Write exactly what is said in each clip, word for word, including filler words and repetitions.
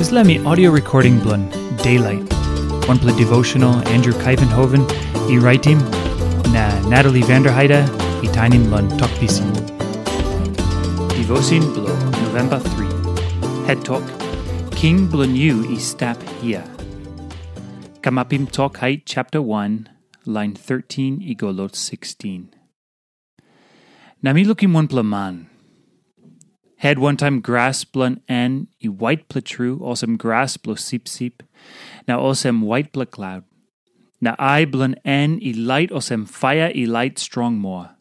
Dispela mi audio recording bilong Daylight, wanpela devotional Andrew Kaivenhoven i raitim, na Natalie Vanderheide i tainim long Tok Pisin. Devotion bilong November three. Het tok, King bilong yu i stap hia. Kamapim Tok Hait chapter one, line thirteen i go lo sixteen. Na mi lukim wanpela man. Het wantaim gras bilong en i waitpela tru, olsem gras bilong sipsip, na olsem waitpela klaut. Na ai bilong en i lait olsem paia i lait strong moa.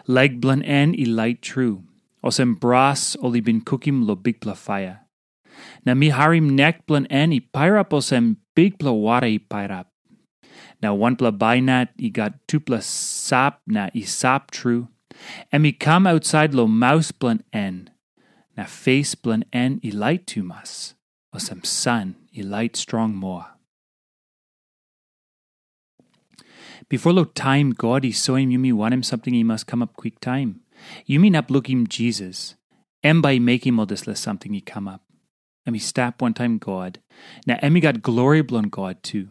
Lek bilong en i lait tru, olsem bras ol i bin kukim long bikpela paia. Na mi harim nek bilong en i pairap olsem bikpela wara i pairap. Na wanpela bainat i gat tupela sap na i sap tru, em i kam ausait long maus bilong en, na pes bilong en i lait tumas, olsem san i lait strong moa. Bipo long taim God i soim yumi wanem samting i mas kamap kwiktaim, yumi inap lukim Jisas, em bai i mekim ol dispela samting i kamap. Em i stap wantaim God, na em i gat glori bilong God tu.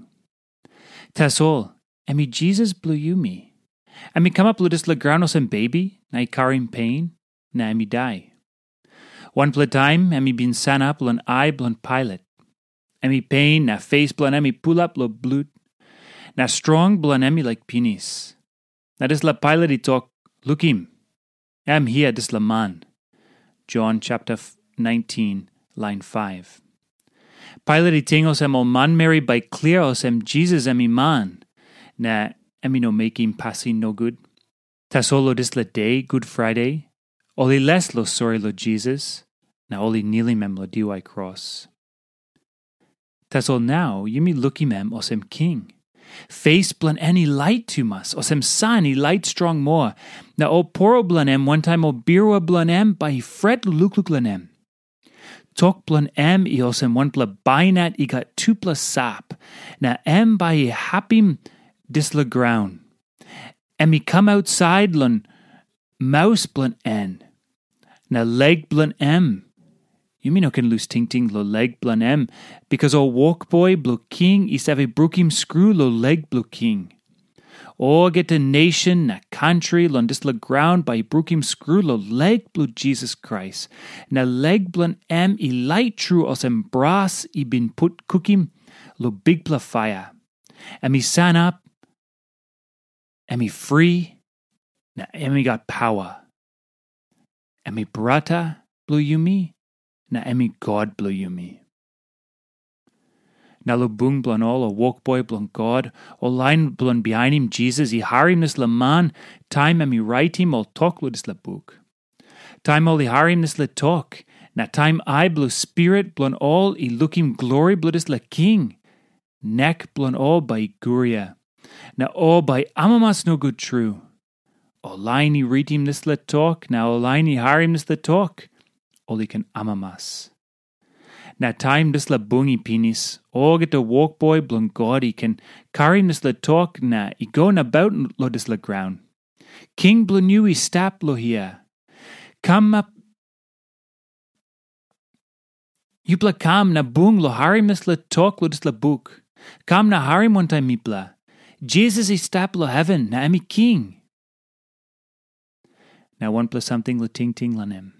Tasol, em i Jisas bilong yumi. Em i kamap long dispela graun olsem bebi, na i karim pen, na em i dai. Wanpela taim em i bin sanap long ai bilong Pailat. Em i pen na pes bilong em i pulap long blut, na strong bilong em i laik pinis. Na dispela Pailat i tok, "Lukim, em hia dispela man." Jon chapter nineteen, lain five. Pailat i ting olsem ol manmeri bai klia olsem Jisas em i man, na em i no mekim pasin nogut. Tasol long dispela de, Gud Friday, ol i les long sori long Jisas, na ol i nilim em long diwai kros. Tasol nau yumi lukim em olsem king. Pes bilong en i lait tumas, olsem san i lait strong moa, na ol poro bilong em wantaim ol birua bilong em bai i fret lukluk long em. Tok bilong em i olsem wanpela bainat i gat tupela sap, na em bai i hapim dispela graun. Em i kam ausait long maus bilong en, na lek bilong em. Yumi no ken lus tingting long lek bilong em, bikas ol wokboi bilong king i save brukim skru long lek bilong king. Olgeta nation na kantri long dispela graun bai i brukim skru long lek bilong Jisas Krais, na lek bilong em i lait tru olsem bras i bin put kukim long bikpela paia. Em i sanap, em i fri, na em i gat paua. Em i brata bilong yumi, na em i God bilong yumi. Na long bung bilong ol ol wokboi bilong God, ol lain bilong bihainim Jisas i harim dispela man taim em i raitim ol tok long dispela buk. Taim ol i harim dispela tok, na taim ai bilong spirit bilong ol i lukim glori bilong dispela king, nek bilong ol bai i guria, na ol bai amamas nogut tru. Ol lain i ritim dispela tok na ol lain i harim dispela tok, ol i ken amamas. Na taim dispela bung i pinis, olgeta wokboi bilong God i ken karim dispela tok na i go nabaut long dispela graun. King bilong yu i stap long hia. Kam ap, yupela kam na bung long harim dispela tok long dispela buk. Kam na harim wantaim mipela. Jisas i stap long heven na em i king. Na wanpela samting long tingting long em.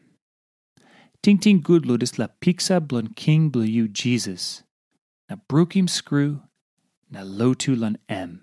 Tingting gut long dispela piksa bilong king bilong yu Jisas, na brukim skru, na lotu long em.